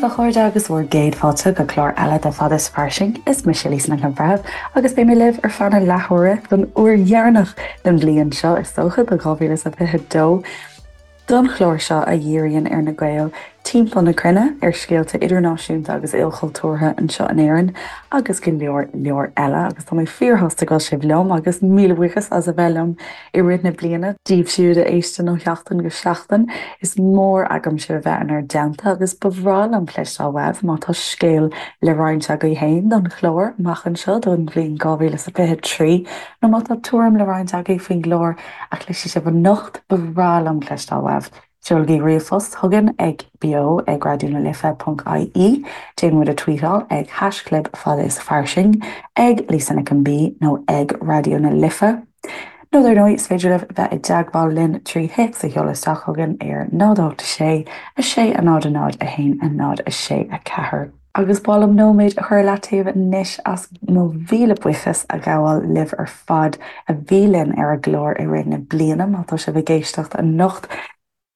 daoibh a chairde agus bhur gcéad fáilte go clár eile de Fada is Fairsing. Is mise Lisa Nic an Bhreithimh agus beidh mé libh ar feadh na leathuaire don uair dheireanach den bhliain seo is dócha, do 2022. Don chlár seo a dhíríonn ar na Gaeil timpeall na cruinne, ar scéalta idirnáisiúnta agus ilchultúrtha anseo in Éirinn agus go leor leor eile agus tá mé fíorshásta go bhfuil sibh liom agus míle buíochas as a bheith liom i rith na bliana. Daoibh siúd a éisteann ó sheachtain go seachtain, is mór agam sibh a bheith inár dteannta agus ba bhreá liom cloisteáil uaibh má tá scéal le roinnt agaibh féin don chlár amach anseo don bhliain 2023 nó má tá tuairim le roinnt agaibh faoin gclár a chloisfidh sibh anocht, ba bhreá liom cloisteáil uaibh. Seolaigí ríomhphost chugainn ag beo ag raidió na life ponc ie, déan muid a tweetáil ag haischlib fada is fairsing, ag Lisa Nic an B nó ag Raidió na Life. Nó dar ndóigh, is féidir libh bheith i dteagmháil linn trí théacs a sheoladh isteach chugainn ar 0 8 6 6 0 0 1 0 6 4. Agus ba mhaith liom nóiméad a chur i leataobh anois as mo mhíle buíochas a ghabháil libh ar fad a bhí linn ar an gclár i rith na bliana. Má tá sibh ag éisteacht anocht,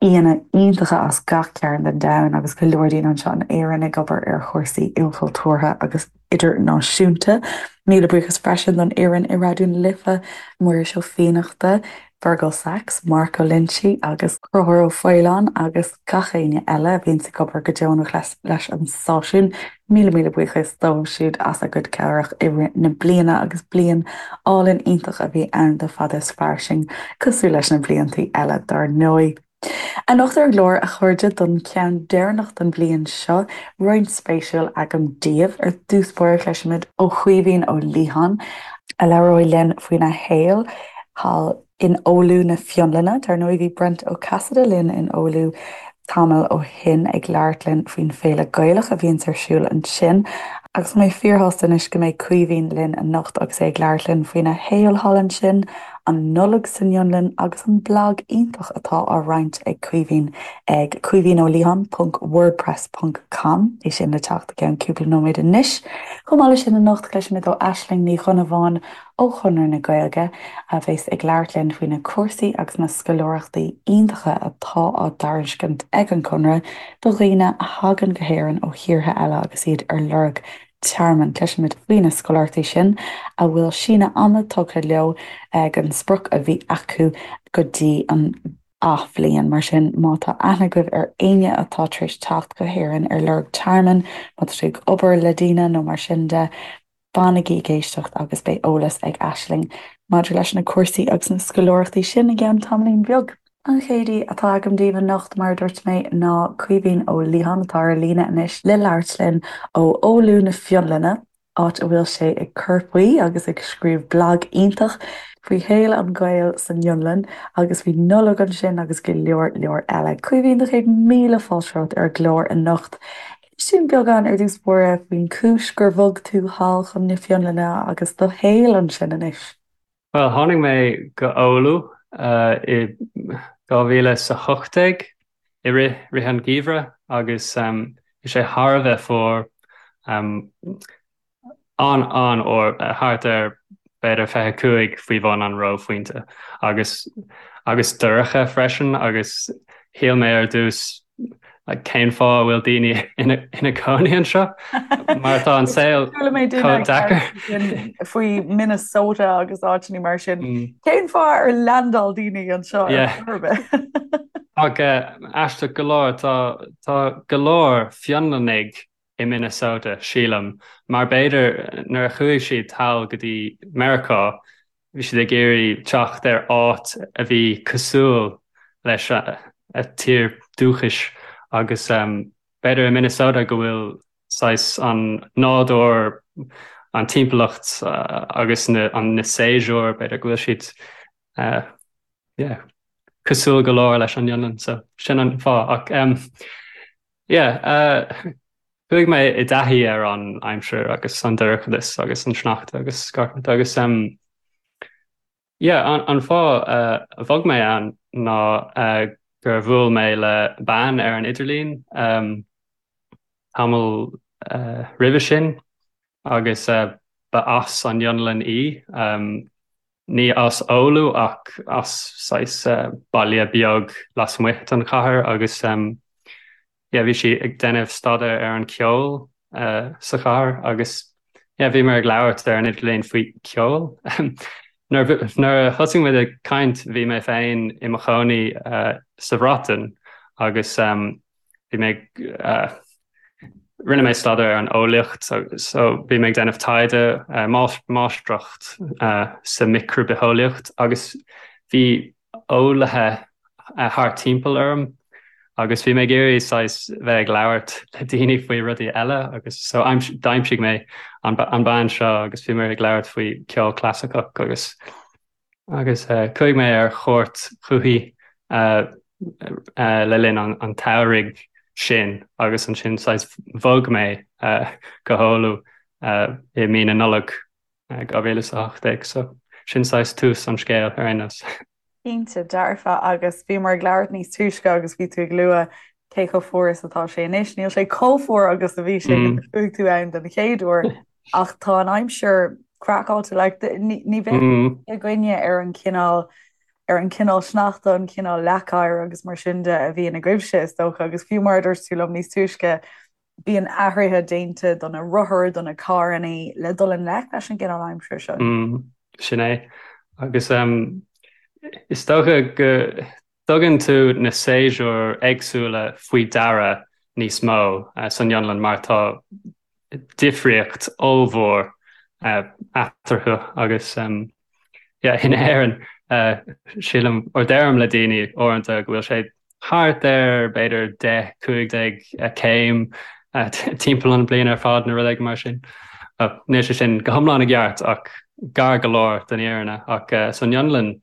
aíonna iontacha as gach cearn den domhan agus go leor daoine anseo in Éirinn ag obair ar chúrsaí ilchultúrtha agus idirnáisiúnta. Míle buíochas freisin don fhoireann i Raidió na Life, Muiris Ó Fiannachta, Fergal Sachs, Mark Ó Loinsigh agus Conchúr Ó Faoláin agus gach éinne eile a bhíonns ag obair go deonach leis an stáisiún. Míle míle buíochas dóibh siúd as a gcuid cabhrach i rith na bliana agus bliain álainn iontach a bhí ann do Fada is Fairsing, cosúil leis na bliantaí eile dár ndóigh. Anocht ar an gclár, a chairde, don cheann deireanach den bhliain seo, roinnt spéisiúil agam daoibh. Ar dtús báire, cloisfimid ó Chaoimhín Ó Liatháin, a labhróidh linn faoina shaol thall in Oulu na Fionlainne. Dar ndóigh, bhí Brent Ó Casaide linn in Oulu tamall ó shin ag labhairt linn faoin féile Gaelach a bhíonns ar siúl ansin. Agus tá mé fíorshásta anois go mbeidh Caoimhín linn anocht agus é ag labhairt linn faoina shaol thall ansin, an Nollaig san Fhionlainn agus an blag iontach atá á roinnt ag Caoimhín ag caoimhínoliatháin ponc wordpress ponc com, é sin le teacht i gceann cúpla nóiméad anois. Chomh maith leis sin anocht cloisfimid ó Aisling Ní Dhonnabháin ó Chonradh na Gaeilge a bheas ag labhairt linn faoi na cúrsaí agus na scoláireachtaí iontacha atá á dtairiscint ag an Chonradh do dhaoine a thagann go hÉirinn ó thíortha eile agus iad ar lorg tearmainn. Cloisfimid faoi na scoláireachtaí sin a bhfuil síneadh ama tugtha leo ag an sprioc a bhí acu go dtí an athbhliain. Mar sin, má tá aithne agaibh ar éinne atá tar éis teacht go hÉirinn ar lorg tearmainn, má tá sibh ag obair le daoine nó mar sin de, fanaigí ag éisteacht agus beidh eolas ag Aisling maidir leis na cúrsaí agus na scoláireachtaí sin i gceann tamaillín beag. An chéad aoi atá agam daoibh anocht, mar a dúirt mé, ná Caoimhín Ó Liatháin, atá ar líne anois le labhairt linn ó Oulu na Fionlainne, áit a bhfuil sé ag cur faoi agus ag scríobh blag iontach faoi shaol an Ghaeil san Fhionlainn agus faoi Nollaig ansin agus go leor leor eile. Caoimhín, do chéad míle fáilte romhat ar an gclár anocht. Inis dúinn beagán ar dtús báire faoin chúis gur bhog tú thall chun na Fionlainne agus do shaol ansin anois. Bhuel, tháinig mé go Oulu i 2018 i rith rith an gheimhreadh agus bhí sé thar a bheith fuar, an-an-fhuar, thart ar b'fhéidir 25 faoi bhun an reophointe agus agus dorcha freisin agus shíl mé ar dtús Like, cén fáth a bhfuil daoine ina ina gcónaí anseo? Mar tá an saol chomh deacair. Faoi Minnesota agus áiteanna mar sin. Mm. Cén fáth ar leaindeáil daoine anseo ar bith? Ach aisteach go leor tá tá go leor Fionlannaigh i Minnesota, sílim, mar b'fhéidir nuair a chuaigh siad thall go dtí Meiriceá, bhí siad ag iarraidh teacht ar áit a bhí cosúil leis a tír dúchais agus b'fhéidir i Minnesota go bhfuil saghas an nádúr, an timpeallacht agus na na séasúir, b'fhéidir go bhfuil siad yeah, cosúil go leor leis an Fhionlainn, so sin an fáth ach Yeah, chuaigh mé i dtaithí ar an aimsir agus an dorchadas agus an sneachta agus gach rud agus yeah, an, an fáth a bhog mé ann ná gur bhuail mé le bean ar an idirlíon tamall roimhe sin agus ba as an Fhionlainn í. Ní as Oulu ach as saghas baile beag lasmuigh den chathair agus. yeah bhí sí ag déanamh staidéar ar an ceol sa chathair agus yeah bhíomar ag labhairt ar an idirlíon faoi ceol. Nuair a thosaigh muid ag caint bhí mé féin i mo chónaí sa Bhreatain agus bhí mé ag rinne mé staidéar ar an eolaíocht so bhí mé ag déanamh taighde máistreacht sa micribitheolaíocht agus bhí eolaithe thart timpeall orm agus bhí mé ag iarraidh saghas bheith ag labhairt le daoine faoi rudaí eile agus so d'aimsigh mé an bean seo agus bhí mé ag labhairt faoi ceol clasaiceach agus Agus chuaigh mé ar chuairt chuici le linn an tsamhraidh sin agus ansin saghas bhog mé go hOulu i mí na Nollag 2018. So sin saghas tús an scéil ar aon nós. Cinnte dearfa agus bhíomar ag labhairt níos túisce agus bhí tú ag lua cé chomh fuar is atá sé anois. Níl sé chomh fuar agus a bhí sé nuair a chuaigh tú ann den chéad uair ach tá an aimsir craiceáilte like ní bheadh againne ar an chineál ar an chineál sneachta, an cineál leacoighir agus mar sin de a bhíonn agaibhse is dócha agus fiú mar a dúirt tú liom níos túisce bíonn athruithe déanta do na rothair, do na carrannaí le dul i ngleic leis an gcineál aimsire seo. Sin é. Agus is dócha go dtugann tú na séasúir éagsúla faoi deara níos mó san Fhionlainn mar tá difríocht ollmhór eatarthu agus yeah in Éirinn sílim or deirim le daoine uaireanta go bhfuil sé thart ar b'fhéidir 10, 15 céim timpeall an bliain ar fad nó rud éigin mar sin. Níl sé sin go hiomlán i gceart ach gar go leor don fhírinne ach san Fhionlainn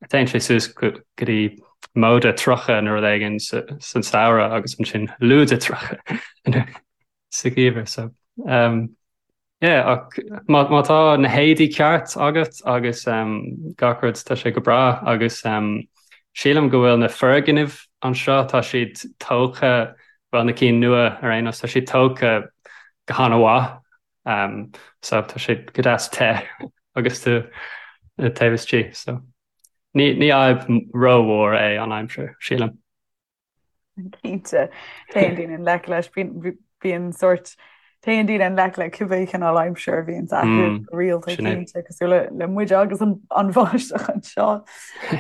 Téann sé suas go dtí móide 30 nó rud éigin san samhradh agus ansin lúide 30 sa gheimhreadh. So um, yeah, ach má, má tá na héadaí ceart agat agus um, gach rud tá sé go breá agus um, sílim go bhfuil na foirgnimh anseo tá siad tógtha bhuel na cinn nua ar aon nós tá siad tógtha go han-mhaith Um, so tá sé go deas te agus tú taobh istigh so ní ní fhadhb rómhór é an aimsir sílim. Cinnte téann daoine i ngleic leis bíonn sórt téann daoine i ngleic le cibé cineál aimsir a bhíonn acu mm, rialta cinnte cosúil le le muid agus an an bháisteach anseo.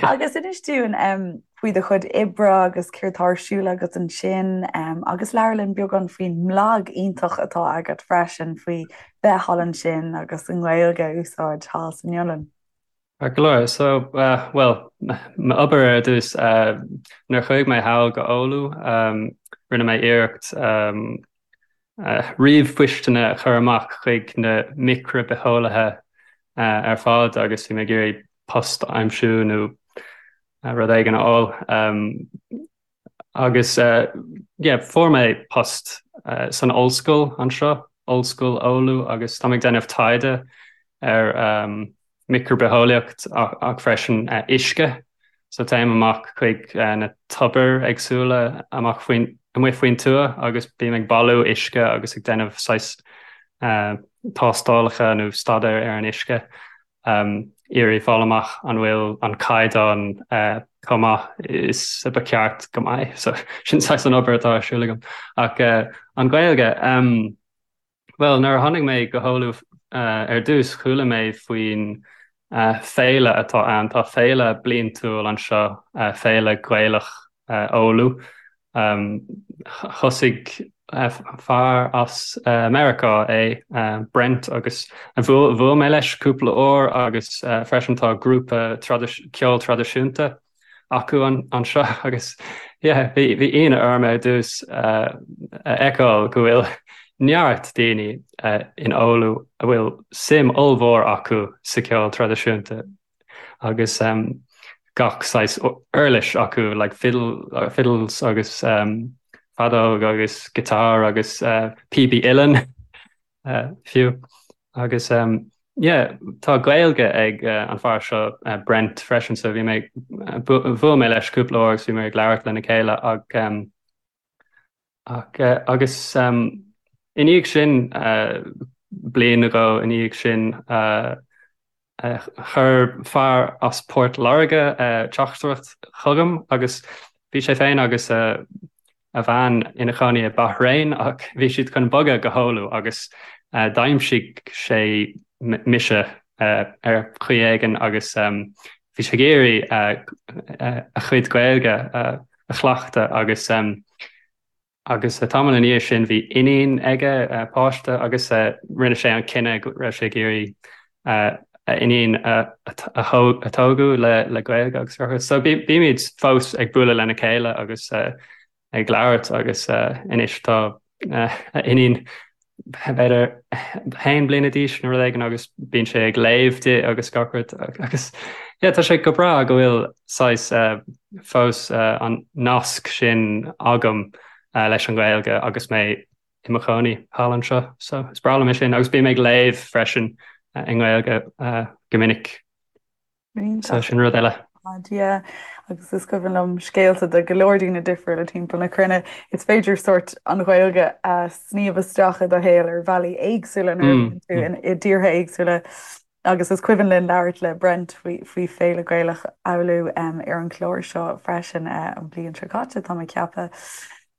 Agus inis dúinn um, faoi do chuid oibre agus céard tá ar siúl agat ansin agus labhair linn beagán faoin mblag iontach atá agat freisin faoi bheith thall ansin agus an Ghaeilge a úsáid thall san Fhionlainn. Ceart go leor. So, bhuel, m'obair ar dtús, nuair a chuaigh mé thall go Oulu, rinne mé iarracht ríomhphoisteanna a chur amach chuig na micribitheolaithe ar fad agus bhí mé ag iarraidh post a aimsiú nó rud éigin a fháil. Agus yeah, fuair mé post san ollscoil anseo, Ollscoil Oulu, agus táim ag déanamh taighde ar micribitheolaíocht ach freisin uisce. So téim amach chuig na tobair éagsúla amach faoin, amuigh faoin tuath agus bím ag bailiú uisce agus ag déanamh saghas tástálacha nó staidéar ar an uisce, iarraidh fáil amach an bhfuil an caighdeán chomh maith is a ba cheart go mbeidh. So sin saghas an obair atá ar siúl agam. Ach an Ghaeilge, Bhuel, nuair a tháinig mé go hOulu ar dtús, chuala mé faoin féile atá ann. Tá féile bliantúil anseo, Féile Ghaelach Oulu. Thosaigh fear as Meiriceá é, Brent, agus bhuail mé leis cúpla uair agus freisin tá grúpa ceoil traidisiúnta acu anseo agus yeah bhí bhí ionadh orm ar dtús a fheiceáil go bhfuil neart daoine in Oulu a bhfuil suim ollmhór acu sa cheol traidisiúnta agus gach saghas uirlis acu like fiddle fiddles agus feadóg agus guitar agus píopaí uilleann. fiú. Agus yeah, tá Gaeilge ag an fear seo Brent freisin so bhí mé bhuail mé leis cúpla uair agus bhí mé ag labhairt lena chéile ach ach agus i ndiaidh sin bliain nó dhó i ndiaidh sin Chuir fear as Port Láirge teachtaireacht chugam agus bhí sé féin agus a. a bhean ina chónaí i Bahrain ach bhí siad chun bogadh go hOulu agus d'aimsigh sé mise ar chaoi éigin agus bhí sé ag iarraidh a chuid Gaeilge a chleachtadh agus Agus tamall ina dhiaidh sin bhí iníon aige, páiste, agus rinne sé an cinneadh go raibh sé ag iarraidh a iníon a tógadh le Gaeilge agus rudaí. So bímid fós ag bualadh lena chéile agus ag labhairt agus anois tá a iníon b'fhéidir haon bliana d'aois nó rud éigin agus bíonn sé ag léamh di agus gach rud agus yeah tá sé go breá go bhfuil saghas fós an nasc sin agam leis an Ghaeilge agus mé i mo chónaí thall anseo so is breá liom é sin agus bím ag léamh freisin i nGaeilge go minic. So sin rud eile. Yeah, agus is cuimhin liom scéalta de go leor daoine difriúla timpeall na cruinne. Is féidir sórt an Ghaeilge a sníomh isteach i do shaol ar bhealaí éagsúla nuair a bhíonn tú i dtíortha éagsúla. Agus is cuimhin linn labhairt le Brent faoi faoi Féile Gaelach Oulu ar an chlár seo freisin an bhliain seo caite, tá mé ag ceapadh.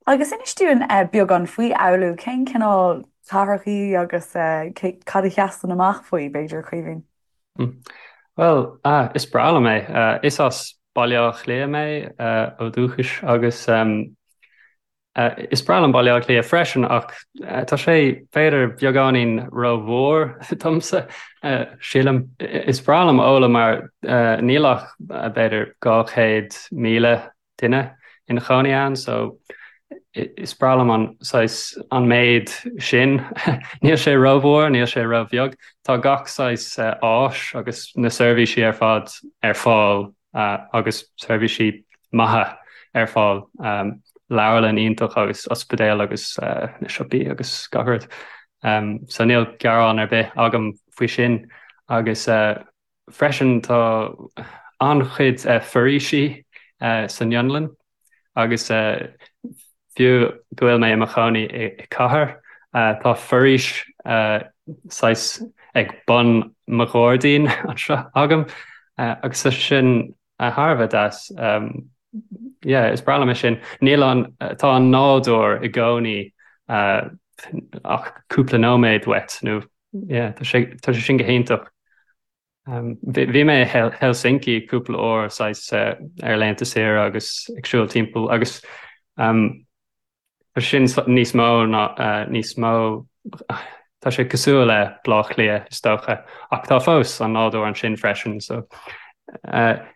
Agus inis dúinn beagán faoi Oulu, cén cineál cathrach í agus cad a sheasann amach faoi, b'fhéidir, Caoimhín? Bhuel, is breá liom é. Is as Baile Átha Cliath mé ó dhúchas agus is breá liom Baile Átha Cliath freisin ach tá sé b'fhéidir beagáinín rómhór domsa, sílim. Is breá liom Oulu mar níl ach b'fhéidir 200,000 duine ina chónaí ann so is breá liom an saghas an méid sin. Níl sé rómhór, níl sé róbheag. Tá gach saghas áis agus na seirbhísí ar fad ar fáil agus seirbhísí maithe ar fáil. Leabharlann iontach agus ospidéal agus na siopaí agus gach rud. So níl gearán ar bith agam faoi sin agus Freisin tá an-chuid foraoisí san Fhionlainn agus fiú go bhfuil mé i mo chónaí i cathair, tá foraois saghas ag bun mo ghairdín anseo agam agus tá sin thar a bheith deas. Yeah, is breá liom é sin. Níl an, tá an nádúr i gcónaí ach cúpla nóiméad uait nó Yeah, tá sé, tá sé sin go hiontach. Bhí mé i Helsinki cúpla uair saghas ar laethanta saoire agus ag siúl timpeall agus tá sin níos mó ná níos mó tá sé cosúil le Baile Átha Cliath is dócha ach tá fós an nádúr ansin freisin so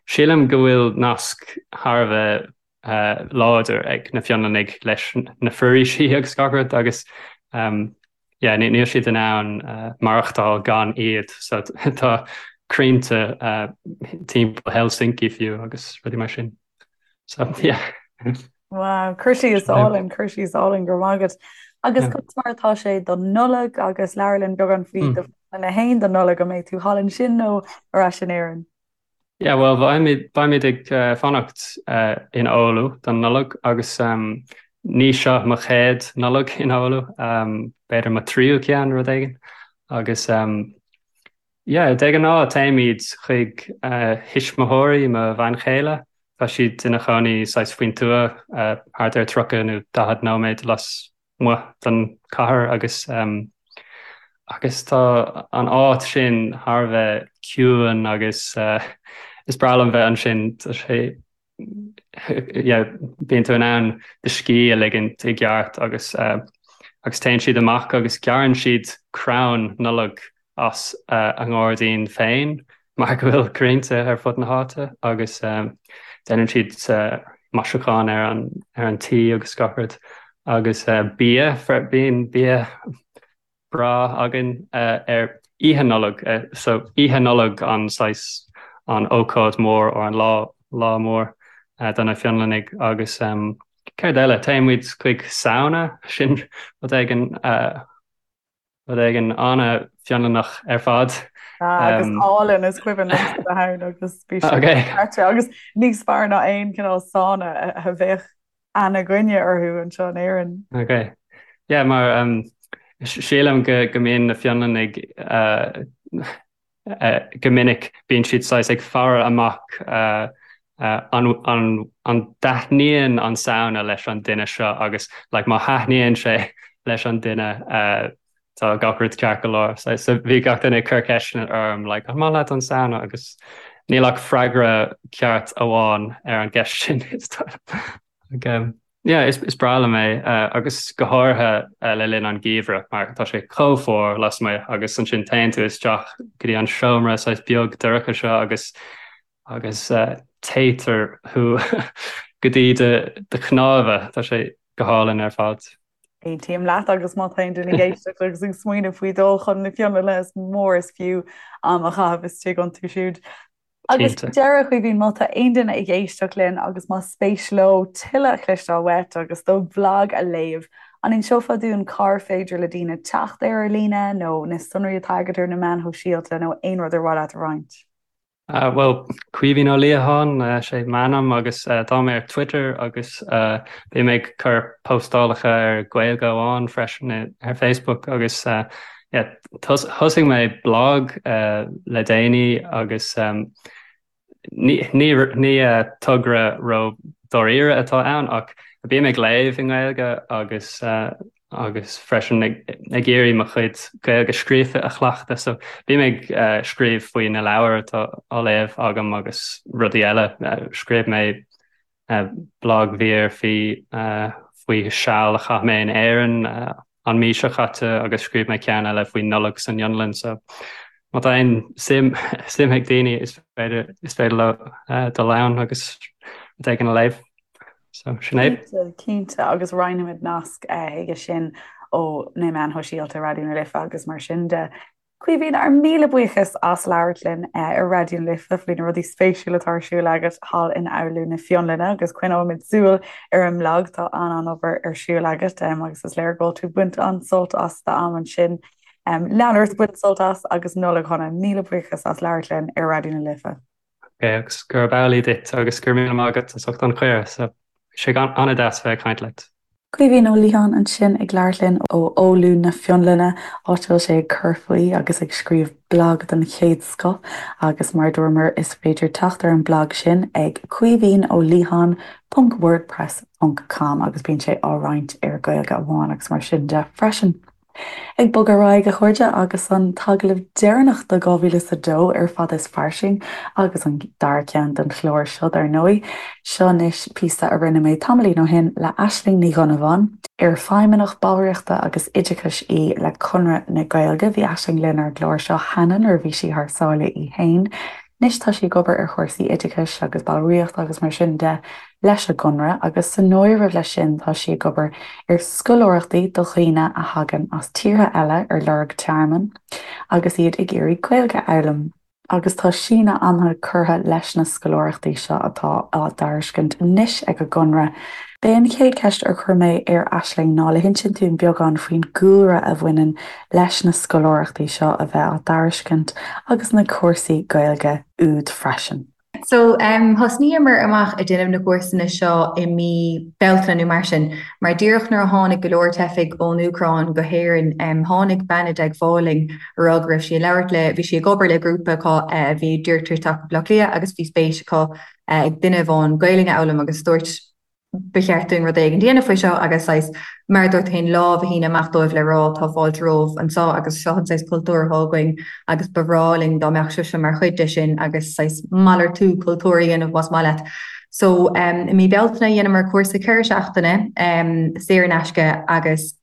sílim go bhfuil nasc thar a bheith láidir ag na Fionlannaigh leis na foraoisí agus gach rud agus yeah, níl siad in ann maireachtáil gan iad so tá crainnte timpeall Helsinki fiú agus rudaí mar sin. So yeah. Wow, cur síos álainn, cur síos álainn go raibh maith agat. Agus conas mar atá sé don Nollaig agus labhair linn beagán faoi do phleananna féin don Nollaig an mbeidh tú thall ansin nó ar ais in Éirinn? Yeah, well, beimid, beimid ag fanacht in Oulu don Nollaig agus ní seo mo chéad Nollaig in Oulu, b'fhéidir mo tríú ceann, rud éigin. Agus yeah, de ghnáth téimid chuig thuismitheoirí mo bhean chéile, tá siad ina chónaí saghas faoin tuath, thart ar 30 nó 40 nóiméad las muigh den chathair agus agus tá an áit sin thar a bheith ciúin agus is breá liom bheith ansin tá sé yeah bíonn tú in ann do scíth a ligint i gceart agus agus téann siad amach agus gearrann siad crann Nollag as a ngairdín féin mar go bhfuil crainnte ar fud na háite agus déanann siad maisiúchán ar an ar an tí agus gach rud agus bia, bíonn bia breá againn ar Oíche Nollag so Oíche Nollag an saghas an ócáid mór or an lá lá mór do na Fionlannaigh agus céard eile téann muid chuig sauna sin rud éigin Rud éigin an-Fhionlannach ar fad. Agus álainn is cuimhin liomsa bheith ann agus bhí sé dochreidte agus níos fearr ná aon cineál sauna a bheadh aithne againne orthu anseo in Éirinn. Ok. Yeah, mar sílim go go mbíonn na Fionlannaigh go minic bíonn siad saghas ag faire amach. An an dtaitníonn an sauna leis an duine seo agus like má thaitníonn sé leis an duine tá gach rud ceart go leor. So so bhí gach duine ag cur ceisteanna orm like an maith leat an sauna agus níl ach freagra ceart amháin ar an gceist sin. Like, yeah, is is breá liom é agus go háirithe le linn an gheimhridh mar tá sé chomh fuar lasmuigh agus ansin téann tú isteach go dtí an seomra saghas beag dorcha seo agus agus téitear thú go dtí do do chnámha, tá sé go hálainn ar fad. Aontaím leat agus má tá aon duine ag éisteacht agus ag smaoineamh faoi dul chun na Fionlainne is mór is fiú am a chaitheamh istigh iontu siúd. Agus Cinnte. deireadh, a Chaoimhín, má tá aon duine ag éisteacht linn agus más spéis leo tuilleadh a chloisteáil uait agus do bhlag a léamh, an inseofá dúinn cár féidir le daoine teacht air ar líne nó na sonraí atá agat ar na meáin shóisialta nó aon rud ar mhaith leat a roinnt? Bhuel, Caoimhín Ó Liatháin, sé m'ainm agus tá mé ar Twitter agus bím ag cur postálacha ar Gaeilge Amháin freisin ar Facebook agus yeah, thosaigh mé blag le déanaí agus ní ní togra ró dáiríre atá ann ach bím ag léamh i nGaeilge agus agus freisin ag iarraidh mo chuid Gaeilge scríofa a chleachtadh. So bím ag scríobh faoi na leabhair atá á léamh agam agus rudaí eile. Scríobh mé blagmhír faoi faoi seal a chaith mé in Éirinn an mí seo caite agus scríobh mé ceann eile faoi Nollaig san Fhionlainn. So má tá aon suim suim ag daoine is féidir is féidir leo dul ann agus rud éigin a léamh. So sin é. Cinnte, cinnte, agus roinnfimid nasc chuige sin ó na meáin shóisialta Raidió na Life agus mar sin de. Caoimhín, ár míle buíochas as labhairt linn ar Raidió na Life faoi na rudaí spéisiúla atá ar siúl agat thall in Oulu na Fionlainne agus coinneoimid súil ar an mblag, tá an-an-obair ar siúl agat agus is léir go bhfuil tú ag baint an-sult as d'am ansin. Lean ort ag baint sult as agus Nollaig shona. Míle buíochas as labhairt linn ar Raidió na Life. Ok, agus gurb amhlaidh duit agus go raibh míle maith agat as ucht an chuireadh. So, bhí sé an-deas bheith ag caint leat. Caoimhín Ó Liatháin ansin ag labhairt linn ó Oulu na Fionlainne, áit a bhfuil sé ag cur faoi agus ag scríobh blag den chéad scoth agus mar a dúramar is féidir teacht ar an mblag sin ag caoimhínoliatháin ponc wordpress ponc com agus bíonn sé á roinnt ar Gaeilge Amháin agus mar sin de freisin. Ag bogadh ar aghaidh, a chairde, agus an t-agallamh deireanach do 2002 ar Fada is Fairsing, agus an dara ceann don chlár seo, dar ndóigh. Seo anois píosa a rinne mé tamaillín ó shin le Aisling Ní Dhonnabháin, ar Feidhmeannach Ballraíochta agus Oideachais í le Conradh na Gaeilge. Bhí Aisling linn ar an gclár seo cheana nuair a bhí sí thar sáile í fhéin. Anois tá sí ag obair ar chúrsaí oideachais agus ballraíochta agus mar sin de leis an gConradh agus san áireamh leis sin tá sí ag obair ar scoláireachtaí do dhaoine a thagann as tíortha eile ar lorg tearmainn agus iad ag iarraidh Gaeilge a fhoghlaim. Agus tá síneadh ama curtha leis na scoláireachtaí seo atá á dtairiscint anois ag an gConradh. B'é an chéad cheist ar chuir mé ar Aisling ná le hinsint dúinn beagán faoin gcúlra a bhaineann leis na scoláireachtaí seo a bheith á dtairiscint agus na cúrsaí Gaeilge úd freisin. So thosnaíomar amach ag déanamh na gcúrsanna seo i mí Bealtaine nó mar sin, mar díreach nuair a tháinig go leor teifigh ón Úcráin go hÉirinn, tháinig bean i dteagmháil linn a rá go raibh sí ag labhairt le, bhí sí ag obair le grúpa acu a bhí ag iarraidh teacht go Baile Átha Cliath agus bhí spéis acu ag duine amháin Gaelainn a fhoghlaim agus dúirt ba cheart dúinn rud éigin a dhéanamh faoi seo agus saghas, mar a dúirt tú féin, lámh a shíneadh amach dóibh le rá tá fáilte romhaibh anseo agus seo an saghas cultúr atá againn agus ba bhreá linn dá mbeadh sibhse mar chuid de sin agus saghas malartú cultúir a dhéanamh más maith leat. So i mí Bealtaine dheineamar cúrsa 4 seachtaine saor in aisce agus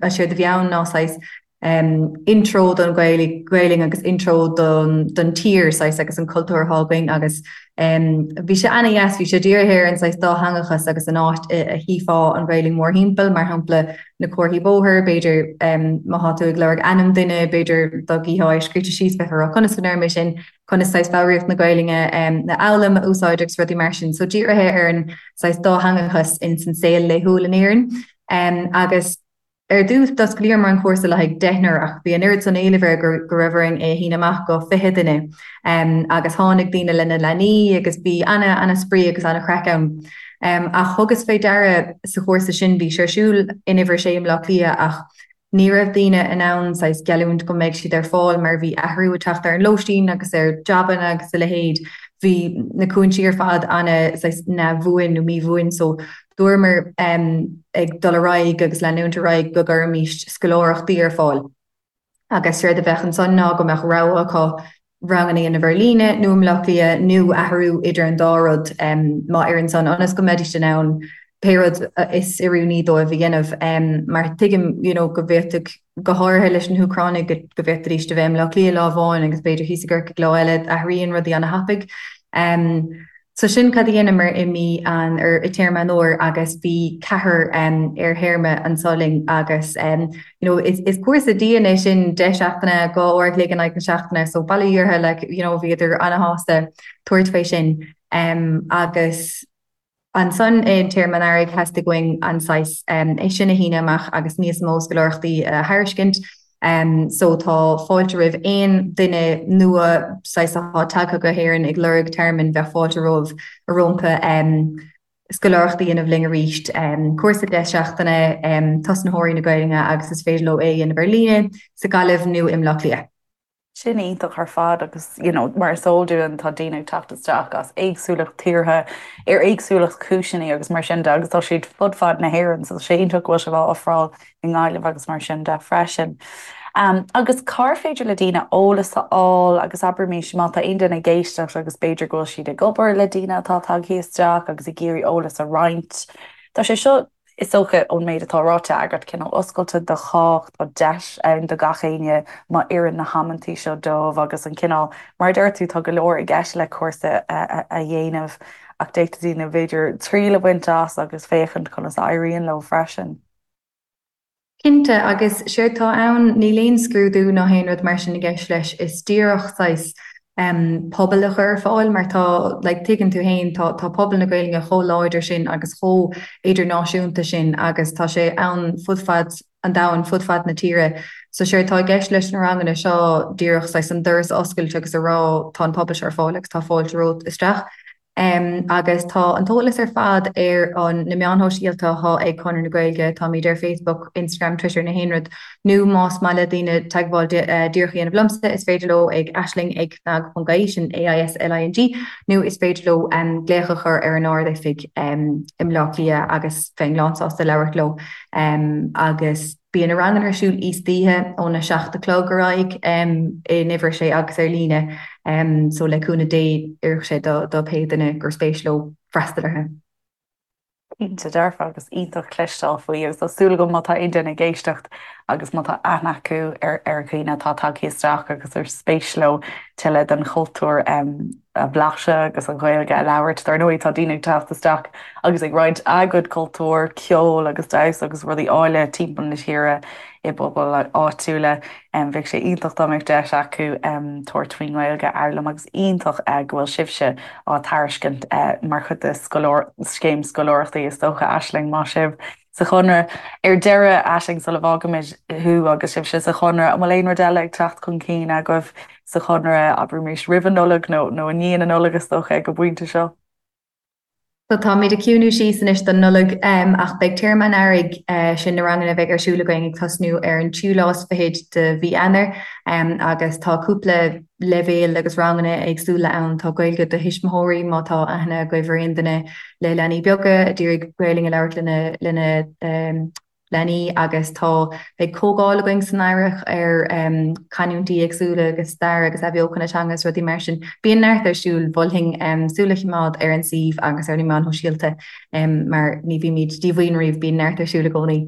séard a bhí ann ná saghas intro don Ghaelainn agus intro don tír saghas agus an cultúr atá againn agus bhí sé ana-dheas, bhí sé dírithe ar an saghas dátheangachas agus an áit a chífeá an Ghaelainn mórthimpeall, mar shampla na comharthaí bóthair, b'fhéidir má thá tú ag lorg ainm duine, b'fhéidir dá gcífeá é scríte síos bheifeá ag rá conas go ndeirim é sin, conas saghas foghraíocht na Gaelainne a fhoghlaim, a úsáid agus rudaí mar sin. So dírithe ar an saghas dátheangachas ins an saol laethúil in Éirinn agus Ar dtús, d'osclaíomar an cúrsa le haghaidh deichniúr ach bhí an oiread san éilimh air go raibh orainn é a shíneadh amach go 20 duine. Agus tháinig daoine lena leanaí agus bhí ana-ana-spraoi agus ana-chraic ann. Ach thugas fé deara sa chúrsa sin, bhí sé ar siúl in Uimhir 6 i mBleá Cliath ach ní raibh daoine in ann saghas geallúint go mbeidh siad ar fáil mar bhí athrú ag teacht ar an lóistín agus ar jabanna agus a leithéid. Bhí na cúinsí ar fad ana saghas neamhbhuan nó míbhuan so dúramar ag dul ar aghaidh agus leanúint ar aghaidh go gcuirfimís scoláireachtaí ar fáil. Agus séard a bheadh ansan ná go mbeadh rogha acu ranganna a dhéanamh ar líne nó i mBleá Cliath nó athrú idir an dá rud má oireann san ionas go mbeidís in ann pé rud is oiriúnaí dóibh a dhéanamh. Mar tuigim you know go bhféadfadh, go háirithe leis na hÚcránaigh, go bhféadfaidís a bheith i mBleá Cliath lá amháin agus b'fhéidir thíos i gCorcaigh lá eile, athraíonn rudaí ana-thapaidh. So sin cad a dheineamar i mí an, ar, i téarma an fhómhair agus bhí ceathrar ar théarma anso linn agus you know is, is cúrsa dian é sin, 10 seachtaine, 2 uair a chloig in aghaidh na seachtaine so bail ó Dhia orthu like you know bhíodar ana-shásta tabhairt fé sin agus Ansan i dtéarma an earraigh theastaigh uainn an saghas é sin a shíneadh amach agus níos mó scoláireachtaí a thairiscint. So tá fáilte roimh aon duine nua saghas atá tagtha go hÉirinn ag lorg tearmainn, bheadh fáilte romhaibh rompu scoláireacht a dhéanamh linn arís. Cúrsa 10 seachtaine, tosnaitheoirí na Gaelainne agus is féidir leo é a dhéanamh ar líne, sa Ghaillimh nó i mBleá Cliath. Sin iontach ar fad agus you know mar is eol dúinn tá daoine ag teacht isteach as éagsúlacht tíortha ar éagsúlacht cúiseanna agus mar sin de agus tá siad fud fad na hÉireann so tá sé iontach go bhfuil sibh á ofráil i nGaillimh agus mar sin de freisin. Um, agus cár féidir le daoine eolas a fháil agus abraimis má tá aon duine ag éisteacht agus b'fhéidir go bhfuil siad ag obair le daoine atá tagtha isteach agus ag iarraidh eolas a roinnt. Tá sé seo Is dócha, ón méid atá ráite agat, cineál oscailte do chách, tá deis ann do gach éinne má oireann na hamantaí seo dóibh agus an cineál, mar a deir tú, tá go leor i gceist le cúrsa a dhéanamh ach d'fhéadfadh daoine b'fhéidir triail a bhaint as agus féachaint conas a éiríonn leo freisin. Cinnte, agus séard tá ann, níl aon scrúdú ná haon rud mar sin i gceist leis, is díreach saghas pobal a chur ar fáil mar tá, like, tuigeann tú fhéin, tá, tá pobal na Gaelainne chomh láidir sin agus chomh idirnáisiúnta sin agus tá sé ann fud fad an domhain, fud fad na tíre. So séard tá i gceist leis na ranganna seo díreach saghas an doras a oscailt agus a rá tá an pobal seo ar fáil agus tá fáilte romhat isteach. Agus tá an t-eolas ar fad ar an na meáin shóisialta atá ag Conradh na Gaeilge, táimid ar Facebook, Instagram, Twitter, na haon rud, nó más maith le daoine teagmháil díreach a dhéanamh liomsa, is féidir leo ag aisling ag cnag.ie, sin A-I-S-L-I-N-G, nó is féidir leo glaoch a chur ar an Ard-Oifig i mBleá Cliath agus bheinn lánsásta labhairt leo. Agus. Bíonn na ranganna ar siúl istoíche óna 7 a chlog ar aghaidh in uimhir a sé agus ar líne so le cúnamh Dé oirfidh sé do pé duine gur spéis leo freastal orthu. Cinnte dearfa agus iontach cloisteáil faoi agus tá súil agam má tá aon duine ag éisteacht agus má tá aithne acu ar ar dhaoine atá tagtha isteach agus ar spéis leo tuilleadh den chultúr a bhlaiseadh agus an Ghaeilge a labhairt. Dar ndóigh tá daoine ag teacht isteach agus ag roinnt a gcuid cultúir, ceol agus damhsa agus rudaí áille timpeall na tíre i bpobail áitiúla. Bheadh sé iontach dá mbeadh deis acu tabhairt faoin nGaeilge a fhoghlaim agus iontach go bhfuil sibhse á tairiscint mar chuid de scéim scoláireachtaí is dócha, Aisling, maith sibh sa Chonradh. Ar deireadh, Aisling, sula bhfágaimid thú agus sibhse sa Chonradh, an bhfuil aon rud eile ag teacht chun cinn agaibh sa Chonradh, abraimis roimh an Nollaig nó nó i ndiaidh na Nollag is dócha ag an bpointe seo? So táimid ag ciúnú síos anois don Nollaig ach beidh téarma an earraigh, sin na ranganna a bheidh ar siúl againn ag tosnú ar an tríú lá is fichead de mhí Eanáir agus tá cúpla leibhéal agus ranganna éagsúla ann. Tá Gaeilge do thuismitheoirí má tá aithne agaibh ar aon duine le leanaí beaga a d'iarraidh Gaelainn a labhairt lena lena leanaí agus tá beidh comhdháil againn san earrach ar canúintí éagsúla agus stair agus athbheochan na teanga agus rudaí mar sin. Bíonn neart ar siúl, mholfainn súil a choimeád ar an suíomh agus ar na meáin shóisialta mar ní bhímid díomhaoin riamh, bíonn neart ar siúl i gcónaí.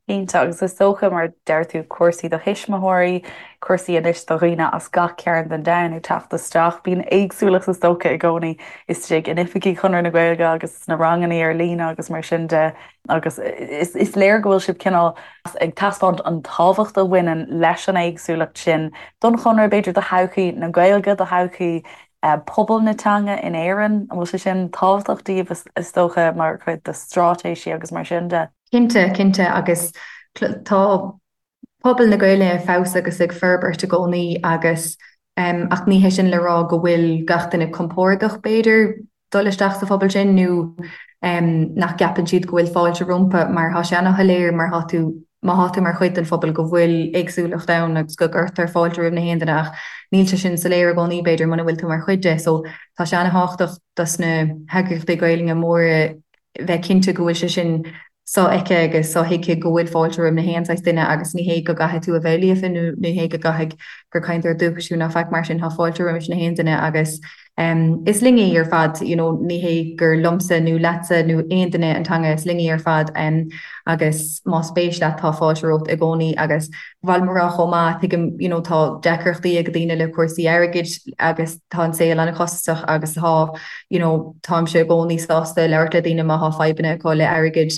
Cinnte, agus is dócha, mar deir tú, cúrsaí do thuismitheoirí, cúrsaí anois do dhaoine as gach cearn den domhan ag teacht isteach. Bíonn éagsúlacht is dócha i gcónaí istigh in oifigí Chonradh na Gaeilge agus sna ranganna ar líne agus mar sin de agus is léir go bhfuil sibh cineál ag taispeáint an tábhacht a bhaineann leis an éagsúlacht sin don Chonradh, b'fhéidir do thodhchaí na Gaeilge, do thodhchaí pobal na teanga in Éirinn. An bhfuil sé sin tábhachtach daoibh is dócha mar chuid de straitéisí agus mar sin de? Cinnte, cinnte, agus tá pobal na Gaeilge ag fás agus ag forbairt i gcónaí agus ach ní hé sin le rá go bhfuil gach duine compordach b'fhéidir dul isteach sa phobal sin nó nach gceapann siad go bhfuil fáilte rompu mar tá sé ana-shoiléir mar tá tú. má thá tú mar chuid den phobal go bhfuil éagsúlacht ann agus go gcuirtear fáilte roimh na haon duine ach níl sé sin soiléir i gcónaí b'fhéidir muna bhfuil tú mar chuid de so tá sé ana-thábhachtach dos na heagraíochtaí Gaelainne móra bheith cinnte go bhfuil sé sin sofheicthe agus sothuigthe go bhfuil fáilte roimh na haon saghas duine agus ní hé go gcaithfidh tú a bheith líofa nó ní hé go gcaithfidh gur cainteoir dúchais thú ná faic mar sin, tá fáilte roimis na haon duine agus is linn í ar fad, you know, ní hé gur liomsa nó leatsa nó aon duine an teanga, is linn í ar fad agus más spéis leat tá fáilte romhat i gcónaí agus ba mhaith liom a rá chomh maith, tuigim, you know, tá deacrachtaí ag daoine le cúrsaí airgid agus tá an saol an-chostasach agus tá, you know, táimse i gcónaí sásta labhairt le daoine má thá fadhbanna acu le airgead,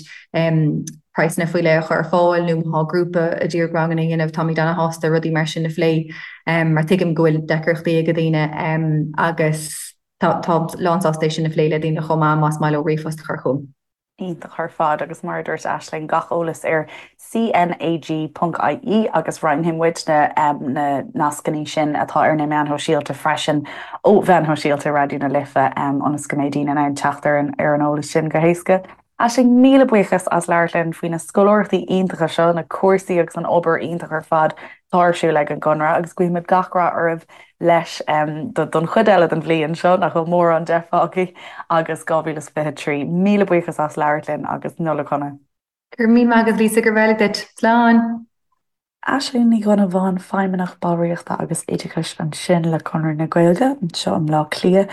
praghsanna faoi leith a chur ar fáil nó má thá grúpa ag iarraidh ranganna a dhéanamh, táimid ana-shásta rudaí mar sin a phlé mar tuigim go bhfuil deacrachtaí ag daoine agus tá, táim lánsásta é sin a phlé le daoine chomh maith más maith leo ríomhphost a chur chugam. Iontach ar fad agus mar a dúirt Aisling, gach eolas ar CNAG.ie agus roinnfidh muid na nascanna sin atá ar na meáin shóisialta freisin ó mheáin shóisialta Raidió na Life ionas go mbeidh daoine in ann teacht ar an ar an eolas sin go héasca. Aisling, míle buíochas as labhairt linn faoi na scoláireachtaí iontacha seo, na cúrsaí agus an obair iontach ar fad atá ar siúl ag an gConradh agus guímid gach rath oraibh leis don chuid eile den bhliain seo, nach bhfuil mórán de fágtha, agus 2023. Míle buíochas as labhairt linn agus Nollaig Shona. Go raibh míle maith agat Lisa, go raibh maith duit. Slán! Aisling Ní Dhonnabháin, Feidhmeannach Ballraíochta agus Oideachais ansin le Conradh na Gaeilge anseo i mBleá Cliath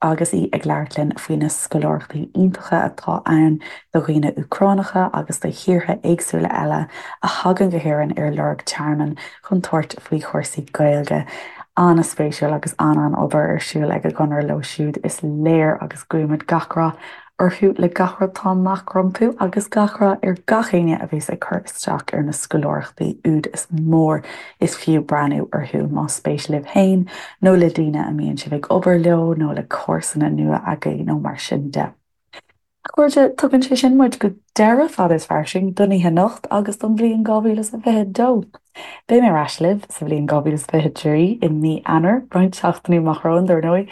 agus í ag labhairt linn faoi na scoláireachtaí iontacha atá ann do dhaoine Úcránacha agus do thíortha éagsúla eile a thagann go hÉirinn ar lorg tearmainn chun tabhairt faoi chúrsaí Gaeilge. An-spéisiúil agus an-an-obair ar siúl ag an gConradh leo siúd is léir agus guímid gach rath orthu le gach rud atá amach rompu agus gach rath ar gach éinne a bhéas ag cur isteach ar na scoláireachtaí úd is mór is fiú breathnú orthu más spéis libh féin nó le daoine a mbíonn sibh ag obair leo nó le comharsana nua agaibh nó mar sin de. A chairde, tugann sé sin muid go deireadh Fada is Fairsing don oíche anocht agus don bhliain 2022. Beidh mé ar ais libh sa bhliain 2023 i mí Eanáir, roinnt seachtainí amach romhainn, dar ndóigh,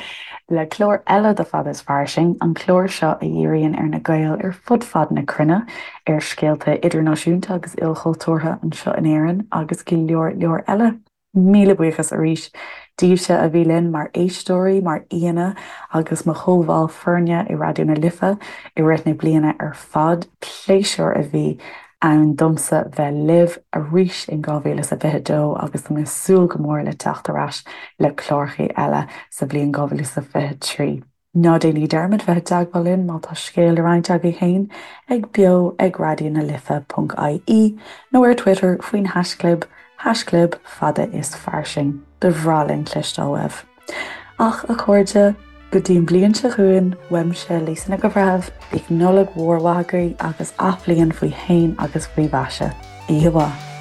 le clár eile de Fada is Fairsing, an clár seo a dhíríonn ar na Gaeil ar fud fad na cruinne, ar scéalta idirnáisiúnta agus ilchultúrtha anseo in Éirinn agus go leor leor eile. Míle buíochas arís daoibhse a bhí linn mar éisteoirí, mar aíonna agus mo chomhbhaill foirne i Raidió na Life i rith na bliana ar fad. Pléisiúr a bhí ann domsa bheith libh arís in 2022 agus tá mé ag súil go mór le teacht ar ais le cláracha eile sa bhliain 2023. Ná déanaigí dearmad bheith i dteagmháil linn má tá scéal le roinnt agaibh féin ag beo ag raidionalife ponc ie nó ar Twitter faoin haischlib haischlib fada is fairsing. Ba bhreá linn cloisteáil uaibh. Ach, a chairde, go dtí an bhliain seo chugainn, uaimse, Lisa Nic an Bhreithimh, bíodh Nollaig mhór mhaith agaibh agus athbhliain faoi shéan agus faoi mhaise. Oíche mhaith.